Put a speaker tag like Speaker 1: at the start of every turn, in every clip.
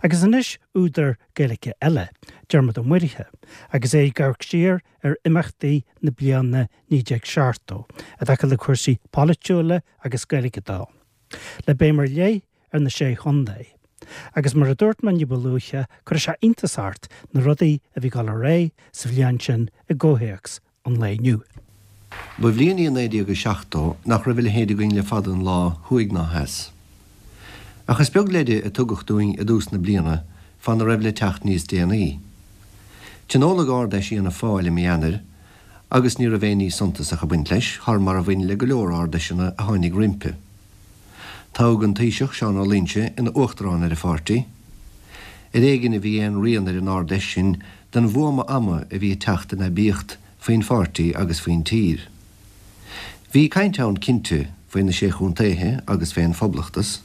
Speaker 1: Agus anois údar Gaeilge eile, Diarmuid Ó Muirithe, agus é ag amharc siar ar imeachtaí na bliana 1970 i dtaca le cúrsaí polaitiúla agus Gaeilge dó, le béim ar leith ar na Sé Chontae. Agus mar a dúirt mé ní ba luaithe, cuirfidh sé iontas ort na rudaí a bhí ag dul ar aghaidh sa bhliain sin i gcomhthéacs an lae inniu.
Speaker 2: Ba bhliain í 1970 nach raibh a leithéid againn le fada an lá, thuaidh ná theas. Ach is beag leide a tugadh dúinn i dtús na bliana fána raibh le teacht níos déanaí. Tionóladh Ard-Fheis Fhianna Fáil i mí Eanáir agus ní raibh aon ní suntasach ag baint leis, thar mar a bhain le go leor Ard-Fheiseanna a tháinig roimpi. Toghadh an Taoiseach, Seán Ó Loingsigh, ina Uachtarán ar an pháirtí. Ar éigin a bhí aon rian ar an Ard-Fheis sin den bhuama ama a bhí ag teacht in aibíocht faoin pháirtí agus faoin tír. Bhí caint ann, cinnte, faoi na Sé Chontaethe agus fén Phoblachtas.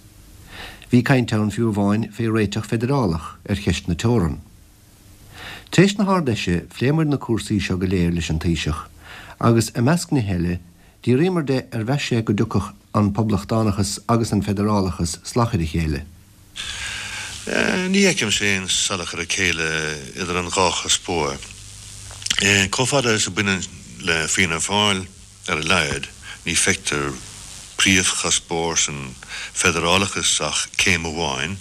Speaker 2: Bhí caint ann fiú amháin fé réiteach feidearálach ar cheist na teorann. Tar éis na hArd-Fheise phléamair na cúrsaí seo go léir leis an Taoiseach agus, i measc nithe eile, d'fhiafraíomar de ar mheas sé go dtiocfadh an Poblachtánachas agus an Feidearálachas salach ar a chéile.
Speaker 3: Ní fheicimse aon salachar a chéile idir an dhá chuspóir. Chomh fada is a bhaineann le Fianna Fáil, ar a laghad, ní feictear príomhchuspóir san feidearálachas ach céim amháin,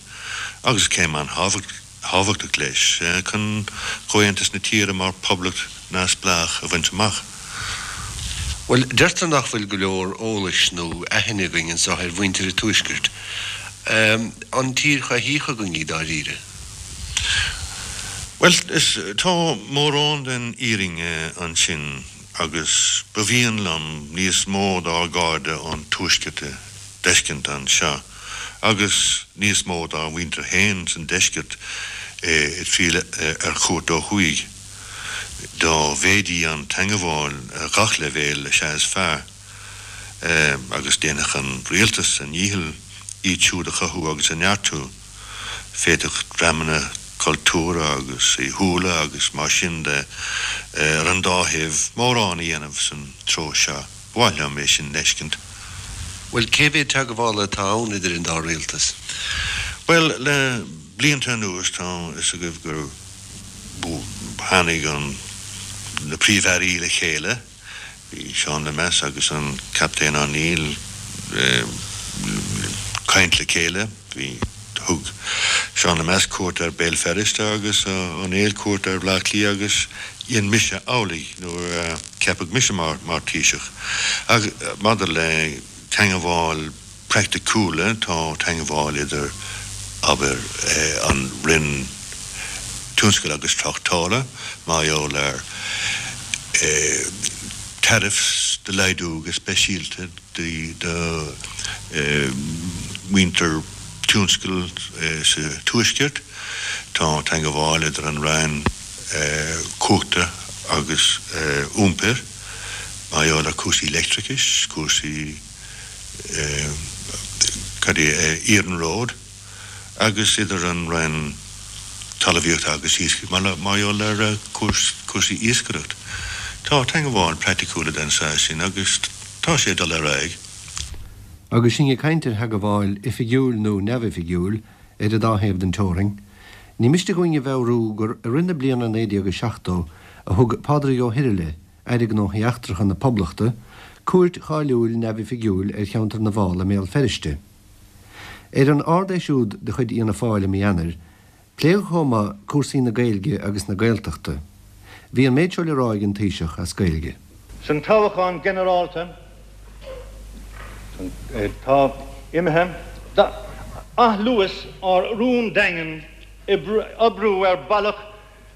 Speaker 3: agus céim an-thábhachtach. thábhachtach leis chun comhaontas na tíre mar phoblacht neamhspleách a bhaint amach.
Speaker 2: Bhuel, deirtear nach bhfuil go leor eolais nó aithne againn anseo ar mhuintir an Tuaiscirt. An tír choimhthíoch againn í dáiríre?
Speaker 3: Bhuel, is, tá mórán den fhírinne ansin agus ba mhian liom níos mó dár gcairde ón Tuaisceart a d'fheiscint anseo. agus níos mó dár muintir féin san deisceart ag triall ar chuairt ó thuaidh. Dá mhéadaí an teangabháil ar ghach leibhéal is ea is fearr, agus déanfadh an rialtas a ndícheall iad siúd a chothú agus a neartú. Féadfadh dreamanna cultúrtha agus saoithiúla agus mar sin de ar an dá thaobh mórán a dhéanamh san treo seo. Ba mhaith liom é sin d'fheiscint.
Speaker 2: Bhuel, cé mhéad teagmhála atá ann idir an dá rialtas?
Speaker 3: Bhuel, le blianta anuas tá fhios agaibh gur tháinig an, na Príomh-Airí le chéile, bhí Seán Lemass agus an Captaen O'Neill ag caint le chéile, bhí, thug Seán Lemass cuairt ar Béal Feirste agus O'Neill cuairt ar Bhleá Cliath agus dhein mise amhlaidh nuair a ceapadh mise mar Thaoiseach. Ach maidir le teangabháil praiticiúla, tá teangabháil idir, abair, an Roinn Tionscail agus Tráchtála mar gheall ar tariffs do laghdú go speisialta do mhuintir tionscail sa Tuaisceart. Tá teangabháil idir an Roinn Cumhachta agus Iompair mar gheall ar cúrsaí leictreachais, cúrsaí cad é, iarnróid agus idir an Roinn Talmhaíochta agus Iascaigh mar gheall ar cúrsaí iascaireacht. Tá teangabháil praiticiúla den saghas sin agus tá sé ag dul ar aghaidh.
Speaker 2: Agus sinn ag caint ar theagmháil oifigiúil nó neamhoifigiúil ar an dá thaobh den teorainn, ní miste dhúinn a mheabhrú gur i rith na bliana 1970 a thug Pádraig Ó hIrghile, Aire Gnóthaí Eachtracha na Poblachta, cuairt cháiliúil neamhoifigiúil ar cheantar na bhFál i mBéal Feirste. Ar an Ard-Fheis úd de chuid Fhianna Fáil i mí Eanáir, pléadh chomh maith cúrsaí na Gaeilge agus na Gaeltachta. Bhí an méid seo le rá ag an Taoiseach as Gaeilge.
Speaker 4: San toghchán ginearálta atá imithe, d'athluas ár rún daingean oibriú ar bhealach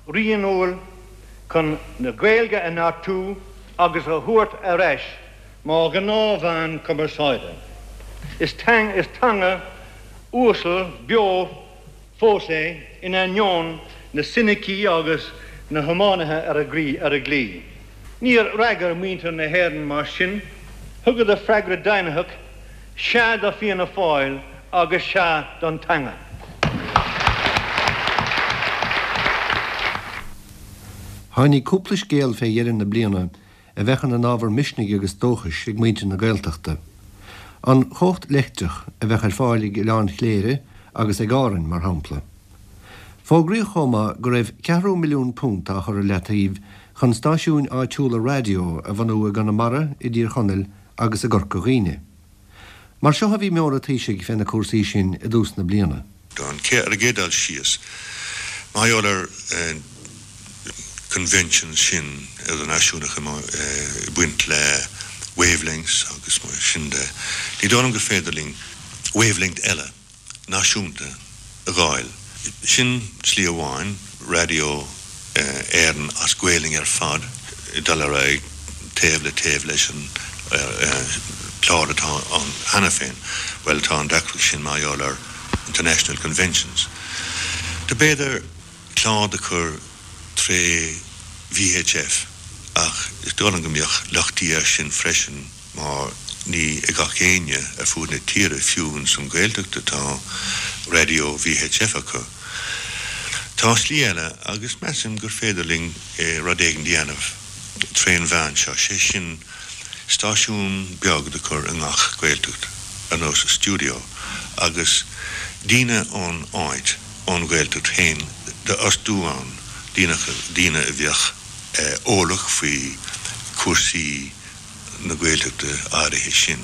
Speaker 4: rianúil chun na Gaeilge a neartú agus a thabhairt ar ais mar ghnáthmheán cumarsáide. Is teanga uasal beo fós é in ainneoin na soinicí agus na hiománaithe ar a gclaí. Níor fhreagair muintir na hÉireann mar sin, thugadar freagra deimhnitheach, sea do Fianna Fáil agus sea don teanga.
Speaker 2: Tháinig cúpla scéal fé dheireadh na bliana a bheadh ina n-ábhar misnigh agus dóchais ag muintir na Gaeltachta. An chumhacht leictreach a bheadh ar fáil ag Oileán Chléire agus ag Árainn, mar shampla. Fógraíodh chomh maith go raibh ceathrú milliún punt á chur i leataobh chun stáisiúin áitiúla raidió a bhunú i gConamara, i dTír Chonaill agus i gCorca Dhuibhne. Mar seo a bhí meon an Taoisigh fé na cúrsaí sin i dtús na bliana.
Speaker 3: Don ar an gcéad dul síos, mar gheall ar conventions sin idirnáisiúnacha ag baint le wavelengths agus mar sin de, ní dóigh liom gur féidir linn wavelength eile náisiúnta a dh'fháil. Sin slí amháin, Raidió Éireann as Gaolainn ar fad ag dul ar aghaidh taobh le taobh leis an chlár atá ann cheana féin. Bhuel, tá an deacracht sin mar gheall ar international conventions. Do b'fhéidir clár do chur tré VHF ach is dóigh liom go mbeadh lochtaí air sin freisin. mar ní ag gach éinne ar fuaid na tíre, fiú ins an Ghaeltacht atá raidió VHF acu. Tá slí eile agus measaim gur féidir linn rud éigin dhéanamh trén mheán seo, sé sin stáisiún beag do chur i ngach Gaeltacht, ar nós stiúideo, agus daoine ón áit, ón Ghaeltacht féin d'fhostú ann, daoine a bheadh eolach faoi chúrsaí na Gaeltachta áirithe sin.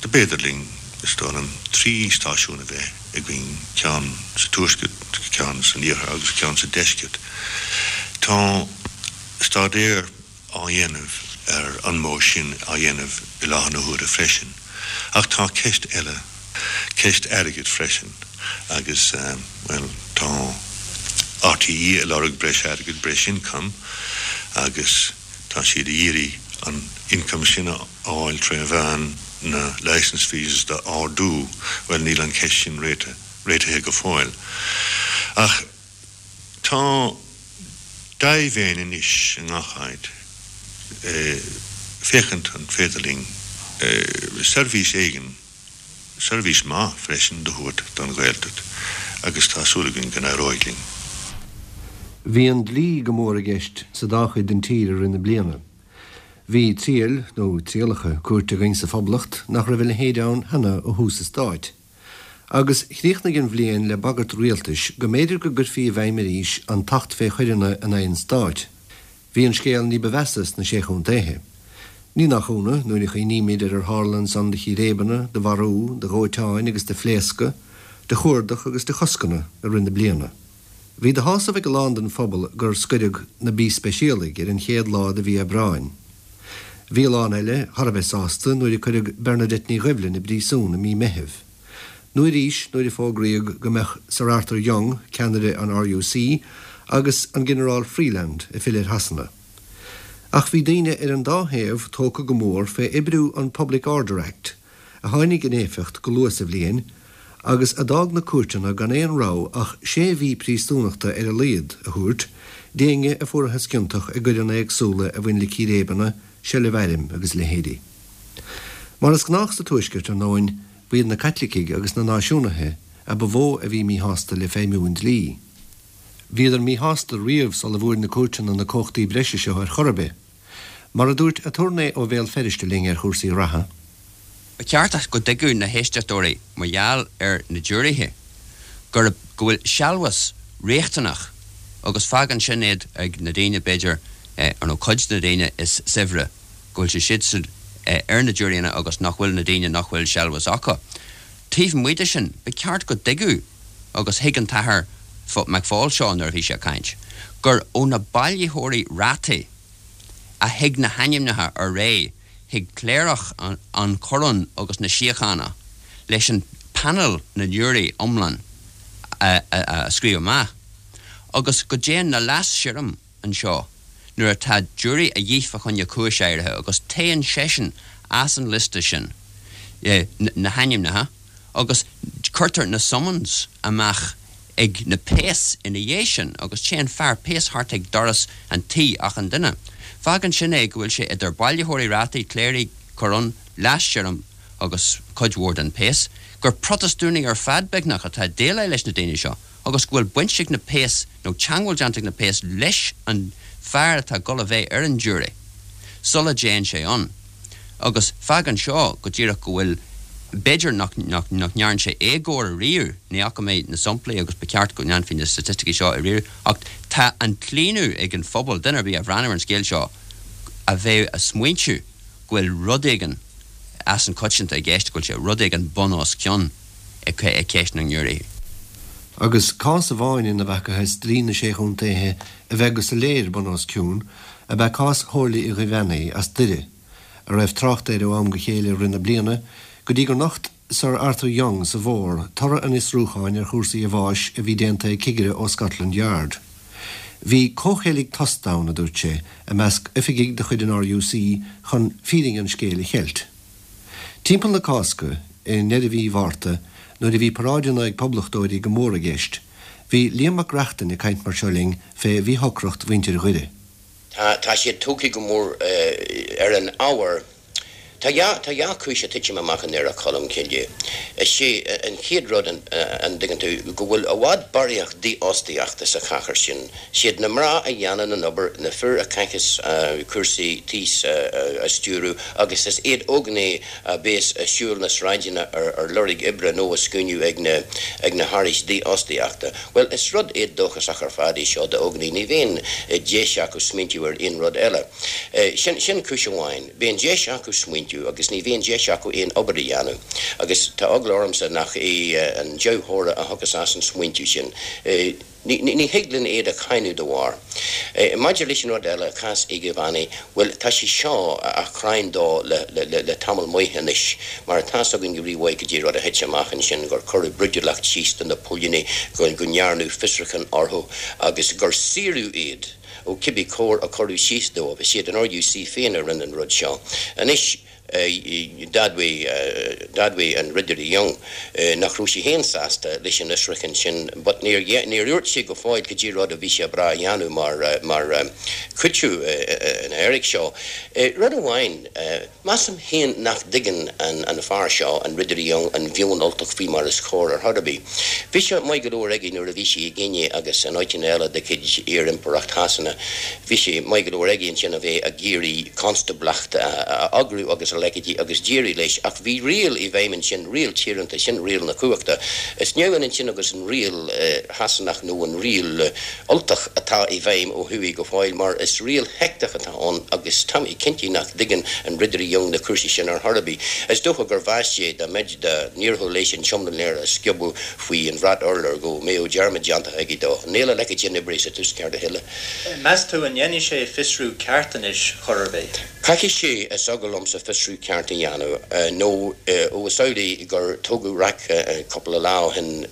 Speaker 3: Do b'fhéidir linn, is dóigh liom, 3 stáisiún a bheith againn, ceann sa tuaisceart, ceann san iarthar agus ceann sa deisceart. Tá staidéar á dhéanamh ar an modh sin á dhéanamh i láthair na huaire freisin. Ach tá ceist eile, ceist airgid freisin agus, bhuel, tá RTÉ ag lorg breis airgid, breis income agus, Tá siad ag iarraidh an income sin a fháil tré mheán na licence fees d'ardú. Bhuel, níl an cheist sin réitithe go fóill. Ach tá dea-mhéin anois i ngach áit féachaint an féidir linn seirbhís éigin, seirbhís maith freisin do thabhairt don Ghaeltacht agus tá súil againn go n-éireoidh linn.
Speaker 2: Bhí an dlí go mór i gceist sa dá chuid den tír i rith na bliana. Bhí triail, nó trialacha, cúirte againn sa Phoblacht nach raibh a leithéid ann cheana ó thús an stáit. Agus chríochnaigh an bhliain le bagairt rialtais go mb'fhéidir go gcuirfí i bhfeidhm arís an tAcht fé Choireanna in aghaidh an Stáit. Bhí an scéal ní ba mheasa sna Sé Chontaethe. Ní nach ionadh, nuair a chuimhnímid ar ar tharla ansan de chíréibeanna, de mharú, de dhóiteáin agus de phléascadh, de chuardach agus de choscanna i rith na bliana. Bhí de shásamh ag a lán den phobal gur scoireadh na B-Speisialaigh ar an chéad lá de mhí Aibreáin. Bhí a lán eile thar a bheith sásta nuair a cuireadh Bernadette Ní Dhoibhlin i bpríosún i mí Meithimh. Nó arís nuair a fógraíodh go mbeadh Sir Arthur Young, ceannaire an RUC, agus an Ginearál Freeland ag filleadh ar Shasana. Ach bhí daoine ar an dá thaobh tógtha go mór fé oibriú an Public Order Act, a tháinig in éifeacht go luath sa bhliain, agus a d'fhág na cúirteanna gan aon rogha ach sé mhí príosúnachta ar a laghad a thabhairt d'éinne a fuarathas ciontach i gcoireanna éagsúla a bhain le círéibeanna, seilbh airm agus a leithéidí. Mar is gnách sa Tuaisceart, ar ndóin, ba iad na Caitlicigh agus na Náisiúnaithe a ba mhó a bhí míshásta le feidhmiú an dlí. Bhíodar míshásta riamh sula bhfuair na cúirteanna na cumhachtaí breise seo ar chor ar bith. Mar a dúirt aturnae ó Bhéal Feirste linn ar chúrsaí reatha.
Speaker 5: Ba cheart go dtuigfeadh na héisteachtóirí mar gheall ar na giúiréithe gurb go bhfuil sealbhas riachtanach agus fágann sin iad ag na daoine b'fhéidir nó cuid de na daoine is saibhre go bhfuil sé siadsan ar na giúiréanna agus nach bhfuil na daoine nach bhfuil sealbhas acu. Taobh amuigh de sin, ba cheart go dtuigfeadh, agus thuig an tAthair McFall seo nuair a bhí sé ag caint, gur ó na bailitheoirí rátaí a thig na hainmneacha ar aghaidh chuig cléireach an Choróin agus na Síochána leis an panel na ngiúirí iomlán a scríobh amach agus go dtéann na leas-sirriam anseo nuair atá giúirí a dhíth fá choinne cúis áirithe agus téann seisean as an liosta sin na hainmneacha agus cuirtear na summons amach ag na péas ina dhiaidh sin agus téann fear péas thart ag doras an tí achan duine. Fágann sin é go bhfuil sé idir bailitheoirí rátaí, cléirigh, coróin, leas-sirriam agus cuid mhór den péas, gur Protastúnaigh ar fad beagnach atá ag déileáil leis na daoine seo agus go bhfuil baint ag na péas nó teangmháil déanta ag na péas leis an fear atá ag dul a bheith ar an giúiré sula dtéann sé ann. Agus fágann seo go díreach go bhfuil. B'fhéidir nach ndearn sé éagóir ariamh, ní fhaca mé na samplaí agus ba cheart go ndéanfaí na staitisticí seo a ríomh, ach tá an claonadh ag an phobal, duine ar bith a bhreathnódh ar an scéal seo, a bheith a' smaointiú go bhfuil rud éigin as an coitianta i gceist, go bhfuil sé rud éigin bun os cionn i gceist na ngiúiréithe.
Speaker 2: Agus cás amháin ina bhfacthas dlí na Sé Chontaetha a bheith go soiléir bun os cionn ab ea cás Shomhairle Uí Dhuibheannaigh as Doire, a raibh trácht air ó am go chéile i rith na bliana, go dtí gur nocht Sir Arthur Young sa bhfómhar toradh an fhiosrúcháin ar chúrsaí a bháis a bhí déanta ag cigire ó Scotland Yard. Bhí comhcheilg tost ann, a dúirt sé, i measc oifigigh de chuid an RUC chun fírinne an scéil a cheilt. Timpeall na Cásca, i ndeireadh mhí Mhárta, nuair a bhí paráideanna ag poblachtóirí go mór i gceist, bhí Liam Mac Reachtain ag caint mar seo linn fé mhíshocracht mhuintir Dhoire.
Speaker 6: Tá siad tógtha go mór ar an ábhar. Tá dhá, tá dhá chúis ag titim amach i nDoire Cholm Cille. Is é an chéad rud, an dtuigeann tú, go bhfuil i bhfad barraíocht dífhostaíochta sa chathair sin. Siad na mná a dhéanann an obair, na fir a chaitheas cúrsaí tís a stiúradh agus is iad óganaigh a bhéas ag siúl na sráideanna ar lorg oibre nó á scuainiú ag na, ag na hárachais dífhostaíochta. Bhuel, is rud éadóchasach ar fad é seo d'óganaigh, ní bhíonn deis acu smaointiú ar aon rud eile. Sin, sin cúis amháin. Bíonn deis acu smaointiú agus ní bhíonn deis acu aon obair a dhéanamh. Agus tá eagla ormsa nach é an dea-thoradh a thiocfas as an smaointiú sin. Ní, ní thig linn iad a cháineadh dá bharr. Maidir leis an rud eile, cás Uí Dhuibheannaigh, bhuel, tá sé seo á chráin dó le, le, le tamall maith anois. Mar tá's againn go rímhaith goidé rud a thit amach ansin, gur cuireadh brúidiúlacht síos do na póilíní, go ndearnadh fiosrúchán orthu agus gur saoradh iad ó cibé cóir a cuireadh síos dóibh. Is iad an RUC féin a rinne an rud seo. Anois, d'admhaigh, d'admhaigh an Ridire Young nach raibh sé féin sásta leis an fhiosrúchán sin but níor, níor dhúirt sé go fóill goidé rud a bhí sé breá a dhéanamh mar, mar chúiteamh ina éiric seo. Rud amháin, Measaim féin nach dtuigeann an fear seo, an Ridire Young, an mheon Ultach faoi mar is chóir ar chor ar bith. Bhí sé maith go leor aige nuair a bhí sé i gCéinia agus in áiteanna eile de chuid iar-impireacht Shasana. Bhí sé maith go leor aige ansin a bheith ag iarraidh constáblacht a eagrú agus a leithéidí agus d'éirigh leis ach bhí riail i bhfeidhm ansin, riail tíoránta, sin riail na cumhachta. Is neamhionann sin agus an riail Shasanach nó an riail Ultach atá i bhfeidhm ó thuaidh go fóill mar is riail sheicteach atá ann agus tá mé cinnte nach dtuigeann an Ridire Young na cúrsaí sin ar chor ar bith. Is dócha gur mheas sé dá mbeid dá n-éireodh leis an seomra léir a sciobadh faoi an bhrat urláir go mbeadh dearmad déanta aige dó. Níl a leithéid sin oibrithe sa Tuaisceart a thuilleadh.
Speaker 7: Meas tú an ndéanfaidh sé fiosrú ceart anois chor ar bith?
Speaker 6: Caithfidh sé, is eagal liomsa, fiosrú ceart a dhéanamh, nó ó is amhlaidh gur tógadh raic cúpla lá ó shin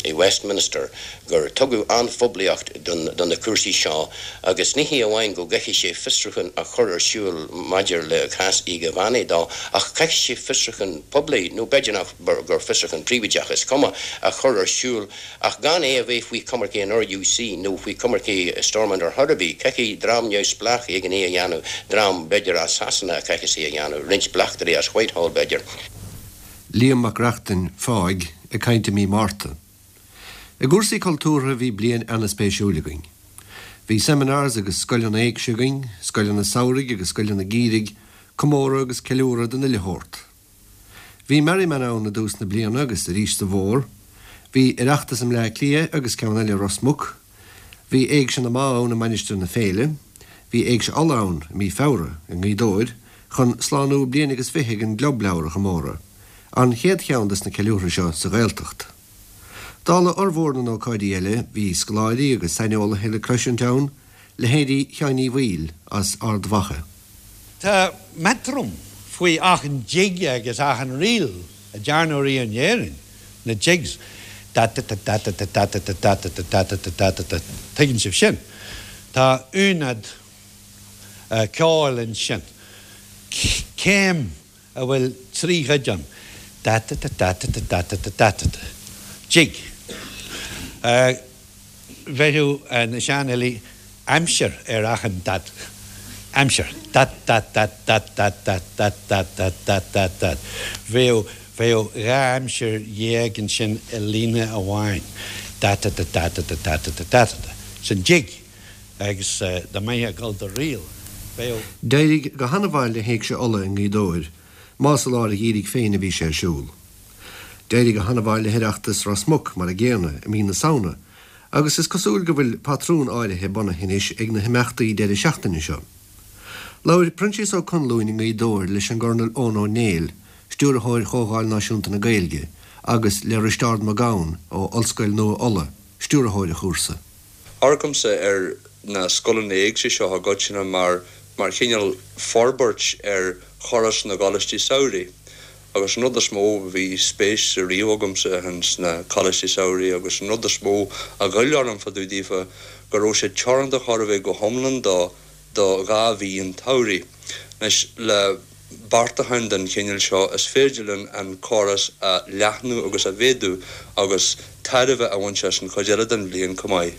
Speaker 6: i Westminster gur tugadh an-phoiblíocht do na cúrsaí seo agus ní hé amháin go gcaithfidh sé fiosrúchán a chur ar siúl maidir le cás Uí Dhuibheannaigh dó ach caithfidh sé fiosrúchán poiblí, nó b'fhéidir nach gur fiosrúchán príobháideach, is cuma, a chur ar siúl ach gan é a bheith faoi choimirce an RUC nó faoi choimirce Stormont ar chor ar bith. Caithfidh dream neamhspleách éigin é a dhéanamh, dream b'fhéidir as Sasana a chaithfeas é a dhéanamh, roinnt bleachtairí as Whitehall b'fhéidir.
Speaker 2: Liam Mac Reachtain, fáidh, ag caint i mí Márta. I gcúrsaí cultúrtha bhí bliain ana-spéisiúil againn. Bhí seminars agus scoileanna éigse againn, scoileanna samhraidh agus scoileanna geimhridh, comóradh agus ceiliúradh den uile shórt. Bhí Merriman ann i dtús na bliana agus arís sa bhfómhar. Bhí Oireachtas i mBleá Cliath agus ceann eile i Ros Muc. Bhí Éigse na mBá ann i Mainistir na Féile. Bhí Éigse Uladh ann i mí Feabhra i nGaoth Dobhair chun slánú bliain agus fiche ag an gClub Leabhar a chomóradh, an chéad cheann des na ceiliúrtha seo sa Ghaeltacht. Dála fhormhór na n-ócáidí eile, bhí scoláirí agus saineolaithe le cloisint ann, leithéidí Sheáin Uí Bhaoill as Ard Mhacha.
Speaker 8: Tá metronome faoi achan jig agus achan ríl a dearnadh riamh in Éirinn, na jigs, da-da-da-da-da-da-da-da-da-da-da-da-da-da-da, tuigeann sibh sin. Tá ionad ceoil ansin. Céim a bhfuil 3 chuid ann, da-da-da-da-da-da-da-da-da-da-da, jig. Bheireadh na seanfhilí aimsir ar achan dat, aimsir, dat-dat-dat-dat-dat-dat-dat-dat-dat-dat-dat. Bheadh, bheadh 12 aimsir ansin i líne amháin, da-da-da-da-da-da-da-da-da-da-da, sin jig. Agus dá mbeifeá ag dul do ríl, bheadh.
Speaker 2: D'éirigh go hana-mhaith le hÉigse Uladh i nGaoth Dobhair. más i lár an gheimhridh féin a bhí sé ar siúl. D'éirigh go han-mhaith le hOireachtas Ros Muc mar an gcéanna i mí na Samhna agus is cosúil go bhfuil patrún áirithe bunaithe anois ag na himeachtaí deireadh seachtaine seo. Labhair Proinsias Ó Conluain i nGaoth Dobhair leis an gCornal Eoin Ó Néill, Stiúrthóir Chomhdháil Náisiúnta na Gaeilge, agus le Risteárd Mac Gabhann ó Ollscoil Nua Uladh, Stiúrthóir an chúrsa.
Speaker 9: Amharcaimse ar na scoileanna éigse seo i gcoitinne mar mar chineál forbairt ar chóras na gcoláistí samhraidh. Agus an rud is mó, bhí spéis riamh agamsa ins na coláistí samhraidh agus an rud is mó a ghoill orm fá dtaobh daofa go raibh siad teoranta chóir a bheith go hiomlán do do dhá mhí an tsamhraidh. Anois, le beartacháin den chineál seo, is féidir linn an córas a leathnú agus a mhéadú agus tairbhe a bhaint as an chuid eile den bhliain chomh maith.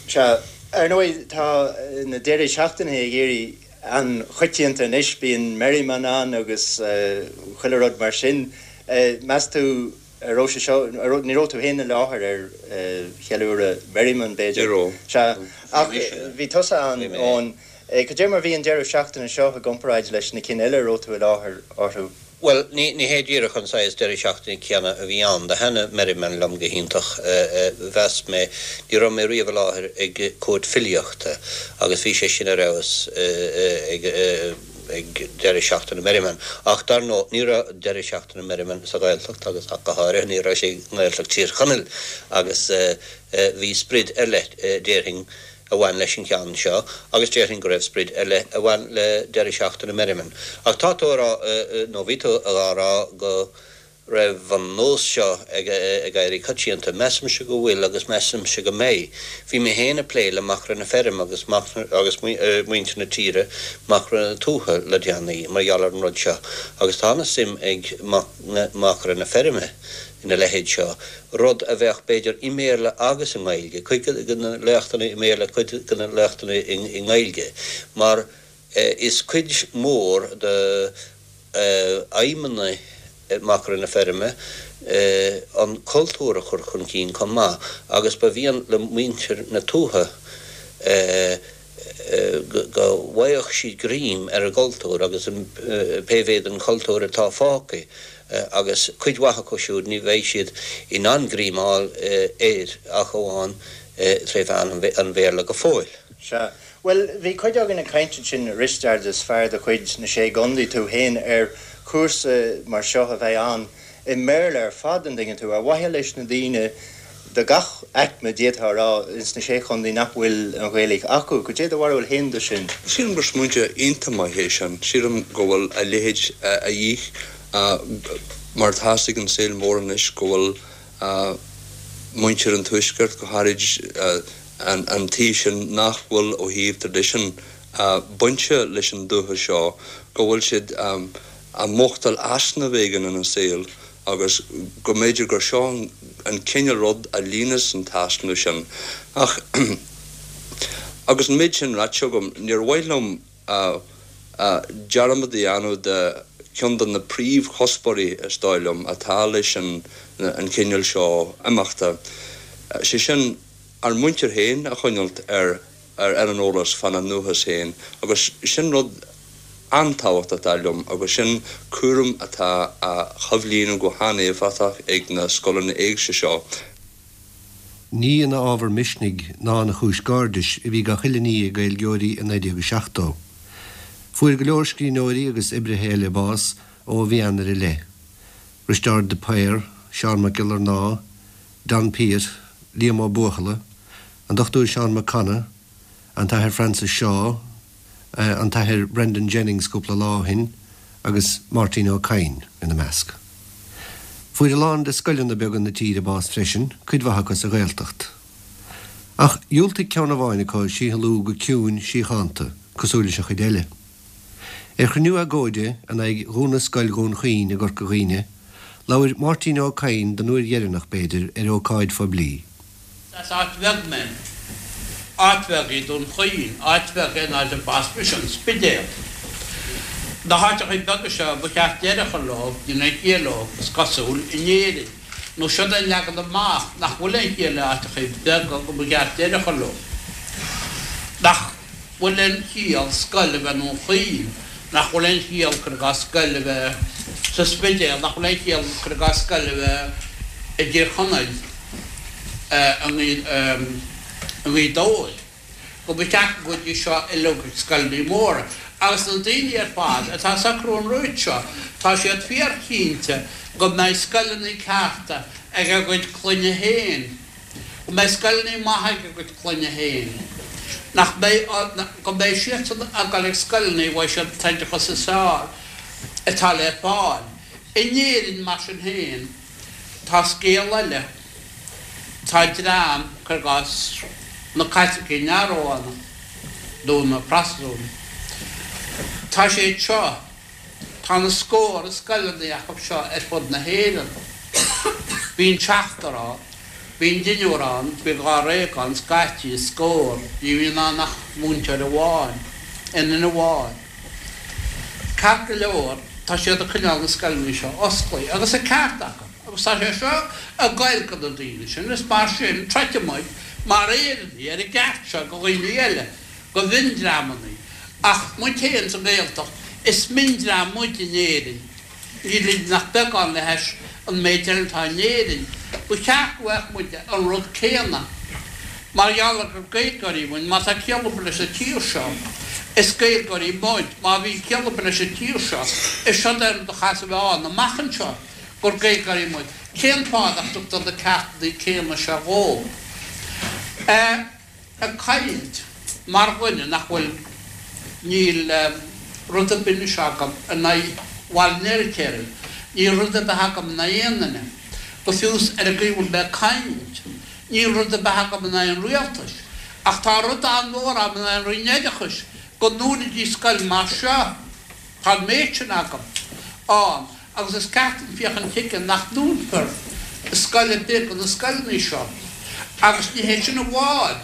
Speaker 7: Sea. Ar ndóigh, tá na deirí seachtaine ag éirí an-choitianta anois. Bíonn Merriman ann agus chuile rud mar sin. Meas tú An raibh sé seo, ní raibh tú féin i láthair ar cheiliúradh Merriman, b'fhéidir?
Speaker 9: Ní raibh.
Speaker 7: Sea. Ach bhí tusa ann, Eoin. Cad é mar bhí an deireadh seachtaine seo i gcomparáid leis na cinn eile a raibh tú i láthair orthu?
Speaker 6: Bhuel, ní hé díreach an saghas deireadh seachtaine céanna a bhí ann. Do thaitnigh Merriman liom go hiontach, mheas mé. Ní raibh mé riamh i láthair ag cúirt filíochta agus bhí sé sin ar fheabhas ag ag deireadh seachtaine Merriman. Ach dar ndóigh, ní raibh deireadh seachtaine Merriman sa Ghaeltacht agus ach go háirithe ní raibh sé i nGaeltacht Thír Chonaill agus bhí sprid ar leith, déarfainn, a bhain leis an cheann seo agus déarfainn go raibh sprid ar leith a bhain le deireadh seachtaine Merriman. Ach tá tú a rá, nó bhí tú dhá rá go raibh an nós seo ag éirí coitianta. Measaimse go bhfuil agus measaimse go mbeidh. Bhí mé féin ag plé le Machaire na Feirme agus agus muintir na tíre, Machaire na Tuaithe le déanaí mar gheall ar an rud seo agus tá ana suim ag Machaire na Feirme ina leithéid seo, rud a bheadh b'fhéidir i mBéarla agus i nGaeilge, cuid de na léachtanna i mBéarla, cuid de na léachtanna i nGaeilge mar is cuid mhór de aidhmeanna Machaire na Feirme an cultúr a chur chun cinn chomh maith agus ba mhian le muintir na tuaithe go bhfaigheadh siad greim ar an gcultúr agus pé mhéad den chultúr atá fágtha agus cuid mhaith acu siúd ní bheidh siad in ann greim a fháil air ach amháin tré mheán an Bhéarla go fóill.
Speaker 7: Sea. Bhuel, bhí cuid againn ag caint ansin, a Risteaird, is fear de chuid na Sé gContae tú féin, ar chúrsa mar seo a bheith ann i mBéarla ar fad, an dtuigeann tú, ar mhaithe leis na daoine de gach aicme, d'fhéadfá a rá, ins na Sé Chontae nach bhfuil an Ghaeilge acu. Cad é do bharúil féin de sin?
Speaker 9: Sílim gur smaointe iontach maith é sin. Sílim go bhfuil a leithéid a dhíth mar atá ag an saol mór anois, go bhfuil muintir an Tuaiscirt, go háirid an taobh sin nach bhfuil ó thaobh traidisiún bainte leis an dúiche seo, go bhfuil siad a mhothachtáil easnamh éigin ina saol agus go mb'fhéidir gur seo an cineál rud a líonas an t-easnamh sin. Ach agus an méid sin ráite agam, níor mhaith liom dearmad a dhéanamh de cheann de na príomhchuspóirí, is dóigh liom, atá leis an chineál seo imeachta, sé sin, ár muintir féin a choinneáilt ar ar an eolas fána ndúchas féin agus sin rud an-tábhachtach dar liom agus sin cúram atá á choimhlíonadh go han-éifeachtach ag na scoileanna éigse seo.
Speaker 2: Ní ina ábhar misnigh ná ina chúis gairdis a bhí gach uile ní ag Gaeilgeoirí i 1970. Fuair go leor scríbhneoirí agus oibrithe eile bás ó mhí Eanáir i leith, Risteárd de Paor, Seán Mac Giollarnáth, Donn Piatt, Liam Ó Buachalla, an Dr Seán Mac Cana, an tAthair Francis Shaw, an tAthair Brendan Jennings cúpla lá ó shin agus Máirtín Ó Cadhain ina measc. Fuair a lán de scoileanna beaga na tíre bás freisin, cuid mhaith acu sa Ghaeltacht. Ach dhiúltaigh ceann amháin acu síothlú go ciúin síochánta, cosúil leis an chuid eile. Ar chruinniú agóide in aghaidh dhúnadh Scoil Dhún Chaoin i gCorca Dhuibhne, labhair Máirtín Ó Cadhain don uair dheireanach, b'fhéidir, ar ócáid phoiblí.
Speaker 10: As áit bheag mé. Áit bheag í Dún Chaoin. Áit bheag é an áit a b'as mise, an Spidéal. Na háiteachaí beaga seo, ba cheart deireadh a chur leo, níl aon chiall leo, is cosúil, in Éirinn. Nó siod é an leagan amach, nach bhfuil aon chiall le áiteachaí beaga, go mba cheart deireadh a chur leo. Nach bhfuil aon chiall scoil a bheith i nDún Chaoin. Nach bhfuil aon chiall, cuir i gcás, scoil a bheith sa Spidéal, nach bhfuil aon chiall, cuir i gcás, scoil a bheith i dTír Chonaill, i nGaoth Dobhair, go mba cheart go gcuidí seo uilig ag scoileanna móra. Agus na daoine ar fad atá ag socrú an rúid seo, tá siad fíorchinnte go mbeidh scoileanna cearta ag a gcuid clainne féin. go mbeidh scoileanna maithe ag a gcuid clainne féin, nach mbeidh, go mbeidh siadsan ag dul ag scoileanna a bhfaighidh siad an t-oideachas is fearr atá le fáil. In Éirinn, mar sin féin, tá scéal eile. Tá dream, cuir i gcás, na Caitlicigh neamh-Rómhánacha, nó na Protastúnaigh, tá siad seo, Tá na scórtha scoileanna acu seo ar fud na hÉireann. Bíonn seachtar ann, bíonn deichniúr ann, bíonn dháréag ann, scaití, scór, ní bhíonn ann ach múinteoir amháin, aon duine amháin. Ceart go leor, tá siad ag coinneáil na scoileanna seo osclaithe, agus an ceart acu, agus tá sé seo ag goil go na daoine sin, is mar sin, troidfidh muid mar Éireannaigh ar an gceart seo go dhaoine eile. go mhiondreamanna. Ach muid féin sa nGaeltacht, is miondream muid in Éirinn. Nílimid ach beagán le hais an méid eile atá in Éirinn. Ba cheart go bhfaigheadh muide an rud céanna. Mar gheall ar gur Gaeilgeoirí muid, má tá ciall ar bith leis an tír seo, is Gaeilgeoirí muid. Má bhíonn ciall ar bith leis an tír seo, is seod é an rud a chaithfeas a bheith ann amach anseo, gur Gaeilgeoirí muid. Cén fáth nach dtugtar na ceartanna céanna seo dhóibh? Ag caint mar dhuine nach bhfuil, níl rud ar bith anois agam in aghaidh Bhaile an Fheirtéaraigh, níl rud ar bith agam in aghaidh aon duine, go fiú is ar an gcaoi a bhfuil mé ag caint, níl rud ar bith agam in aghaidh an rialtais, ach tá rud an-mhór agam in aghaidh an Roinn Oideachais, go ndúnfaidís scoil mar seo. Tá an méid sin agam ann agus is ceart dúinn féachaint chuige nach ndúnfar scoil ar bith de na scoileanna seo. Agus ní hé sin amháin,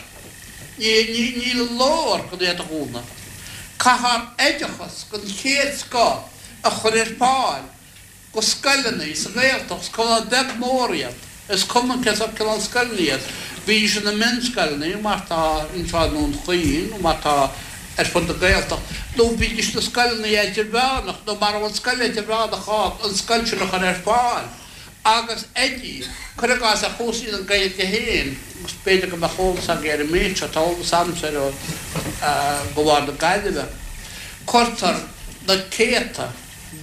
Speaker 10: ní leor gan iad a dhúnadh. Caithfear oideachas den chéad scoth a chur ar fáil. go scoileanna sa Ghaeltacht, is cuma beag mór iad, is cuma cén sórt cineál scoileanna iad, bídís ina mionscoileanna mar tá anseo i nDún Chaoin nó mar tá ar fud na Gaeltacht, nó bídís ina scoileanna idirmheánach nó mara bhfuil scoil idirmheánach ann, an scoil sin a chur ar fáil agus oidí, cuir i gcás ar chúrsaí na Gaeilge féin, agus b'fhéidir go mbeadh eolas agaibh ar an méid seo, tá eolas agamsa air ó de bharr na Gaillimhe, cuirtear na céadta.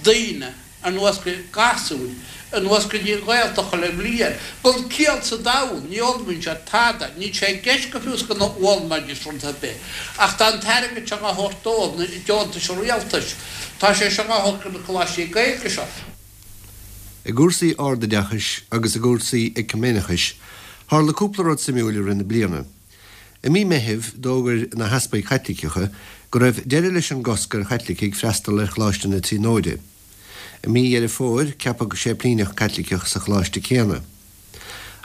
Speaker 10: daoine anuas go, gasúir, anuas go dtí an Ghaeltacht chuile bhliain. Gan ciall sa domhan, ní fhoghlaimíonn siad tada, níl sé i gceist go fiú is go bhfoghlaimeoidís rud ar bith. Ach tá an t-airgead seo á thabhairt dóibh, na deontais an rialtais, tá sé seo á thabhairt go na coláistí Gaeilge seo.
Speaker 2: I gcúrsaí ardoideachais agus i gcúrsaí eiciméineachais, tharla cúpla rud suimiúil i rith na bliana. I mí Meithimh, d'fhógair na heaspaig Chaitliceacha go raibh deireadh leis an gcosc ar Chaitlicigh freastal ar Choláiste na Tríonóide. I mí Dheireadh Fómhair, ceapadh séiplíneach Caitliceach sa choláiste céanna.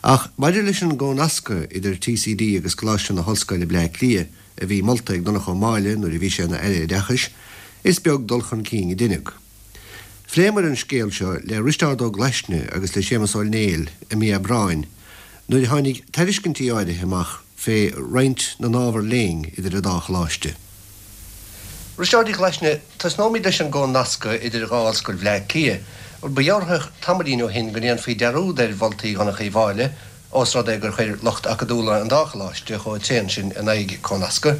Speaker 2: Ach maidir leis an gcónascadh idir TCD agus Coláiste na hOllscoile Bleá Cliath, a bhí molta ag Donncha Ó Máille nuair a bhí sé ina Aire Oideachais, is beag dul chun cinn a deineadh. Phléamar an scéal seo le Risteárd Ó Glaisne agus le Séamus Ó Néill i mí Aibreáin nuair a tháinig tairiscintí áirithe amach fé roinnt na n-ábhar léinn idir an dá choláiste. Risteárd Uí Ghlaisne, Tosnóimid leis an gcónascadh idir dhá ollscoil Bhleá Cliath. Ba dhealraitheach tamaillín ó shin go ndéanfaí dearúd ar mholtaí Dhonncha Uí Mháille ós rud é gur chuir lucht acadúla an dá choláiste chomh tréan sin in aghaidh cónascadh.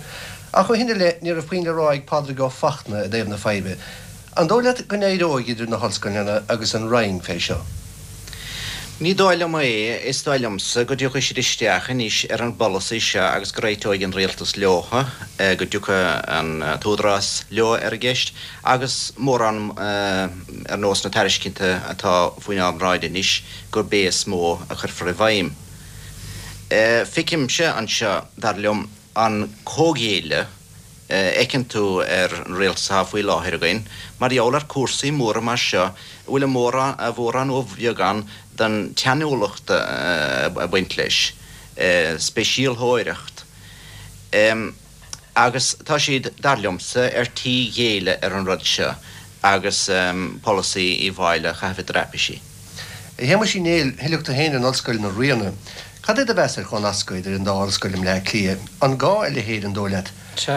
Speaker 2: Ach ó shin i leith, ní raibh puinn le rá ag Pádraig Ó Fachtna i dtaobh na faidhbe. An dóigh leat go n-éireoidh idir na hollscoileanna agus an Roinn fé seo?
Speaker 11: Ní dóigh liom é. Is dóigh liomsa go dtiocfaidh siad isteach anois ar an bpolasaí seo agus go réiteoidh an rialtas leo, go dtiocfaidh an t-údarás leo ar an gceist agus mórán ar nós na tairiscinte atá faoinár mbráid anois, gurb é is mó a chuirfear i bhfeidhm. Feicimse anseo, dar liom, an comhghéilleadh a fheiceann tú ar an rialtas atá faoi láthair againn mar gheall ar cúrsaí móra mar seo a bhfuil a mhórán, a mhórán nó a bheagán den tsainiúlacht ag baint leis, speisialtóireacht. Agus tá siad, dar liomsa, ar tí ghéilleadh ar an rud seo agus polasaí Uí Mháille a chaitheamh i dtraipisí.
Speaker 2: A Shéamuis Uí Néill, thuillfeadh tú féin in Ollscoil na Ríona. Cad é do mheas ar chomhnascadh idir an dá ollscoil i mBleá Cliath? An gá a leithéid, an dóigh leat?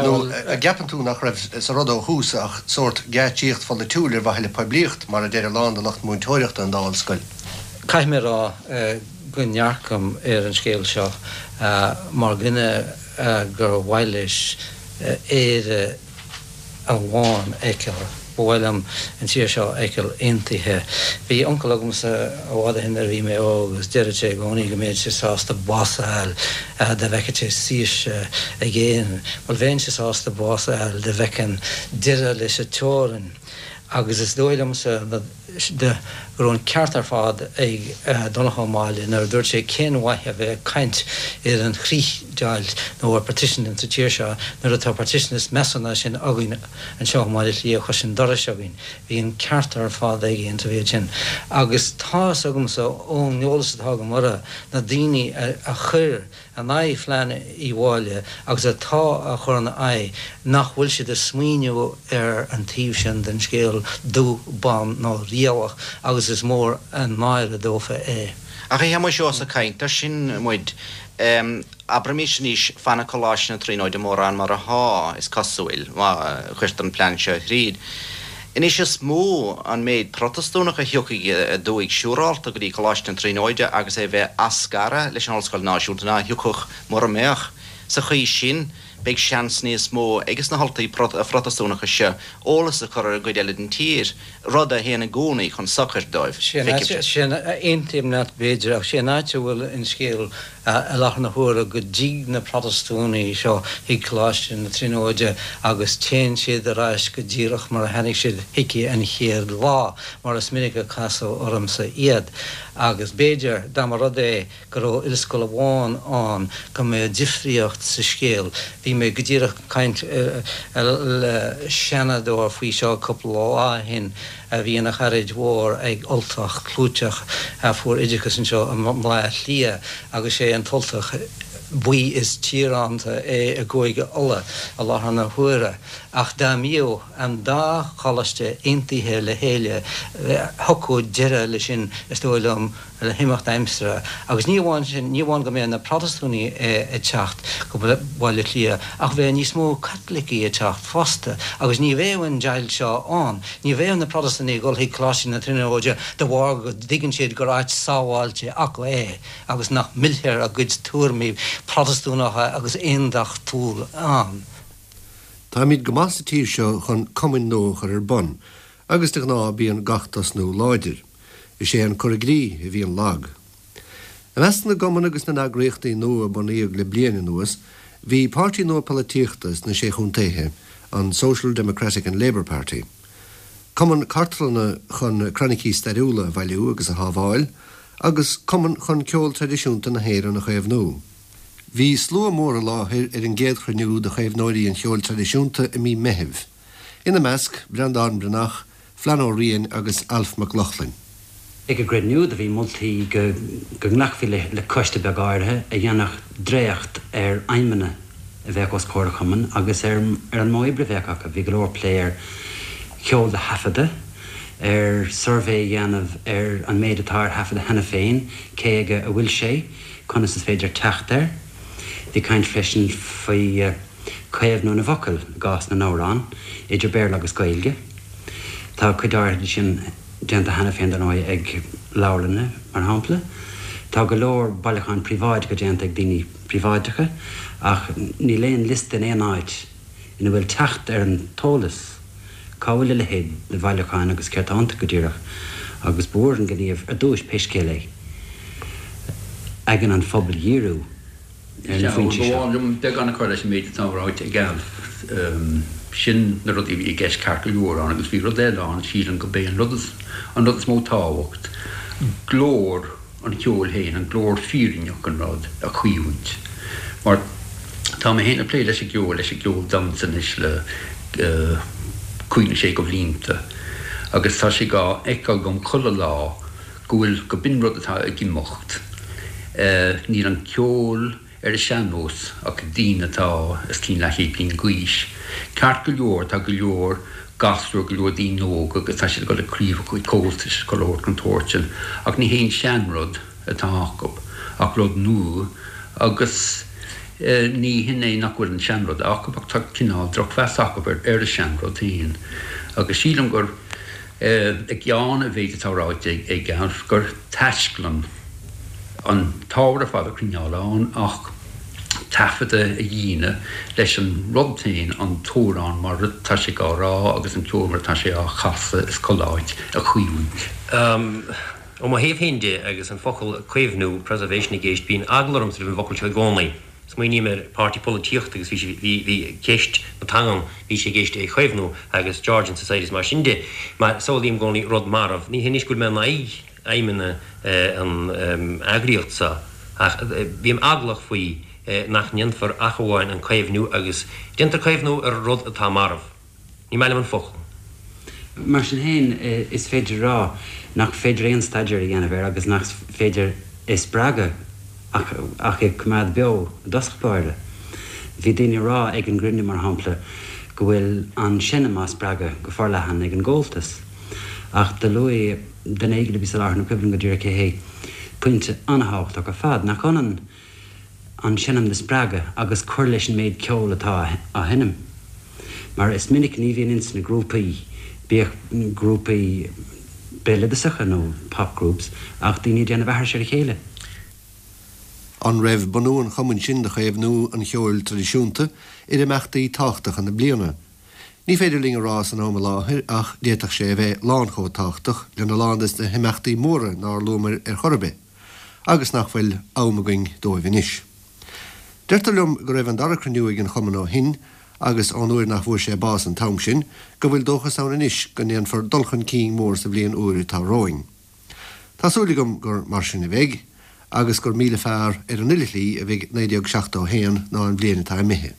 Speaker 2: Nó an gceapann tú nach raibh sa rud ó thús ach sórt geáitsíocht pholaitiúil ar mhaithe le poiblíocht, mar a deir a lán de lucht múinteoireachta an dá ollscoil?
Speaker 12: Caithfidh mé a rá go ndearcaim ar an scéal seo mar dhuine gur mhaith leis Éire amháin a fheiceáil. Ba mhaith liom an tír seo a fheiceáil aontaithe. Bhí uncail agamsa i bhfad ó shin nuair a bhí mé óg agus deireadh sé i gcónaí go mbeadh sé sásta bás a fháil dá bhfeicfeadh sé saoirse ag Éirinn. Bhuel bheinnse sásta bás a fháil dá bhfeicfinn deireadh leis an teorainn agus is dóigh liomsa go raibh an ceart ar fad ag Donncha Ó Máille nuair a dúirt sé cén mhaith a bheith ag caint ar an chríochdheighilt nó ar partition insa tír seo nuair atá partition is measa ná sin againn anseo i mBaile Átha Cliath cois an dorais againn. Bhí an ceart ar fad aige insa mhéid sin. Agus tá fhios agamsa ón eolas atá agam orthu, na daoine a chuir in aghaidh phlean Uí Mháille agus atá á chur ina aghaidh nach bhfuil siad ag smaoineamh ar an taobh sin den scéal dubh, bán ná riabhach agus is mór an náire dófa é.
Speaker 11: Ach a Shéamuis, ós ag caint air sin muid, abraimis anois, fanfaidh Coláiste na Tríonóide mórán mar athá, is cosúil, má chuirtear an plean seo thríd. Anois is mó an méid Protastúnach a thiocfaidh aduaidh siúrálta go dtí Coláiste na Tríonóide agus é bheith á scaradh leis an Ollscoil Náisiúnta ná a thiocfadh mura mbeadh. Sa chaoi sin beidh seans níos mó ages na hUltaigh Phrotastúnacha seo eolas a chur ar an gcuid eile den tír, rud a théann i gcónaí chun sochair dóibh.
Speaker 12: Feicimse. Sé an, aontaím leat b'fhéidir, ach sé an áit a bhfuil an scéal i láthair na huaire go dtig na Protastúnaigh seo chuig Coláiste na Tríonóide agus téann siad ar ais go díreach mar a tháinig siad chuici an chéad lá, mar is minic a casadh ormsa iad. Agus b'fhéidir, dá mba rud é go raibh ollscoil amháin ann, go mbeadh difríocht sa scéal. Bhí mé go díreach ag caint le Seanadóir faoi seo cúpla lá ó shin. a bhí ina charaid mhór ag Ultach clúiteach a fuair oideachas anseo i mBleá Cliath agus sé an tUltach buí is tíoránta é i gCúige Uladh i láthair na huaire. Ach dá mbíodh an dá choláiste aontaithe le chéile thiocfadh deireadh leis sin is dóigh liom. le himeacht aimsire. Agus ní amháin sin, ní amháin go mbeadh na Protastúnaigh ag teacht go Baile Átha Cliath, ach bheadh níos mó Caitlicigh ag teacht fosta, agus ní bheadh an deighilt seo ann. Ní bheadh na Protastúnaigh ag dul chuig Coláiste na Tríonóide de bharr go dtuigeann siad gur áit sábháilte acu é agus nach millfear a gcuid tuairimí Protastúnacha agus aondachtúil ann.
Speaker 2: Táimid go maith sa tír seo chun cumainn nua a chur ar bun, agus de ghnáth bíonn gach tosnú láidir. Is é an cur i gcrích a bhíonn lag. I measc na gcumann agus na n-eagraíochtaí nua a bunaíodh le bliain anuas, bhí páirtí nua polaitíochta sna Sé Chontaethe, an Social Democratic and Labour Party, cumann cartlainne chun croinicí stairiúla a bhailiú agus a shábháil, agus cumann chun ceol traidisiúnta na hÉireann a chaomhnú. Bhí slua mór i láthair ar an gcéad chruinniú de chaomhnóirí an cheoil traidisiúnta i mí Meithimh. Ina measc, Breandán Breathnach, Flann Ó Riain agus Alf Mac Lochlainn.
Speaker 13: Ag an gcruinniú do bhí moltaí go nglacfaí le coiste beag áirithe a dhéanfadh dréacht ar aidhmeanna a bheadh os comhair an chumainn agus ar an modh oibre a bheadh acu. Bhí go leor plé ar cheol a thaifeadadh, ar suirbhé a dhéanamh ar an méid atá ar taifeadadh cheana féin, cé aige a bhfuil sé, conas is féidir teacht air. Bhí caint freisin faoi. caomhnú na bhfocal i gcás na n-amhrán, idir Béarla agus Gaeilge. Tá cuid áirithe de sin déanta cheana féin, dar ndóigh, ag leabharlanna, mar shampla. Tá go leor bailiúcháin príobháideacha déanta ag daoine príobháideacha, ach níl aon liosta in aon áit ina bhfuil teacht ar an t-eolas cá bhfuil a leithéid de bhailiúcháin agus céard tá iontu go díreach. Agus ba mhór an gníomh ar dtúis, pé scéal é, aigne an phobail a dhíriú.
Speaker 14: ar na foinsí seo. Ba mhaith liom beagán a chur leis an méid atá ráite ag Alf. Sin na rudaí a bhí i gceist ceart go leor ann agus bhí rud eile ann, sílim go b'é an rud is an rud is mó tábhacht, glór an cheoil féin, an glór fírinneach an rud a chaomhaint. Mar tá mé féin ag plé leis an gceol, leis an gceol damhsa anois le cúig nó sé de bhlianta agus tá sé dhá fheiceáil agam chuile lá go bhfuil, go b'in rud atá ag imeacht. Níl an ceol ar an sean-nós ach ag daoine atá os cionn leathchéad bliain d'aois. Ceart go leor, tá go leor gasúr, go leor daoine óga agus tá siad ag dul ag craobhacha Comhaltais, chuile shórt den tsórt sin, ach ní haon seanrud atá acu. Ach rud nua agus ní hin é nach bhfuil an seanrud acu ach tá cineál drochmheas acu ar an seanrud féin agus sílim gur i gceann an mhéid atá ráite ag Alf gur taisclann an t-ábhar ar fad a choinneáil ann ach taifeadadh a dhéanamh leis an rud féin, an t-amhrán mar atá sé á rá agus an ceol mar atá sé á chasadh is chuile áit a chaomhaint.
Speaker 15: Ó mo thaobh féin de, agus an focal caomhnú, preservation, i gceist, bíonn eagla ormsa roimh an bhfocal seo i gcónaí. Smaoiním ar páirtí polaitíochta agus bhí sé, bhí, bhí ceist na teangan, bhí sé i gceist é a chaomhnú agus Georgian Society is mar sin de. Mar samhlaím i gcónaí rud marbh. Ní hé anois go bhfuil mé in aghaidh aidhmeanna an eagraíocht seo ach bím eaglach faoi nach ndéanfar ach amháin an caomhnú agus déantar caomhnú ar rud atá marbh. Ní maith liom an focal.
Speaker 13: Mar sin féin, is féidir a rá nach féidir aon staidéar a dhéanamh air agus nach féidir é spreagadh ach ach é coimeád beo i dtosach báire. Bhí daoine ag rá ag an gcruinniú, mar shampla, go bhfuil an seinm á spreagadh go forleathan ag an gComhaltas. Ach do luaigh duine éigin a bhí sa láthair, ní cuimhin liom go díreach cé hé, pointe an-thábhachtach ar fad, nach ionann an seinm do spreagadh agus cur leis an méid ceoil atá á sheinm. Mar is minic ní bhíonn ins na grúpaí, bíodh grúpaí béaloideasacha nó pop groups, ach daoine ag déanamh aithris ar a chéile.
Speaker 2: An raibh bunú an chumainn sin do chaomhnú an cheoil traidisiúnta ar imeachtaí tábhachtacha na bliana? Ní féidir linn a rá san am i láthair ach d'fhéadfadh sé a bheith lán chomh tábhachtach lena lán des na himeachtaí móra nár luamair ar chor ar bith agus nach bhfuil am againn dóibh anois. Deirtear liom go raibh an dara cruinniú ag an chumann ó shin agus ón uair nach bhfuair sé bás an t-am sin go bhfuil dóchas ann anois go ndéanfar dul chun cinn mór sa bhliain úr atá romhainn. Tá súil agam gur mar sin a bheidh, agus gur 1000 fearr ar an uile shlí a bheidh 1971 ná an bhliain atá imithe.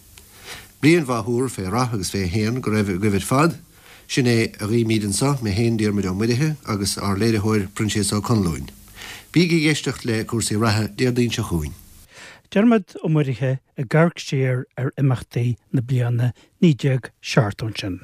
Speaker 2: Bliain mhaith úr fé rath agus fé shéan go raibh agaibh ar fad. Sin é a ghuímíd anso, mé féin, Diarmuid Ó Muirithe, agus ár léiritheoir, Proinsias Ó Conluain. Bígí ag éisteacht le Cúrsaí Reatha Déardaoin seo chugainn.
Speaker 1: Diarmuid Ó Muirithe ag amharc siar ar imeachtaí na bliana 1970 ansin.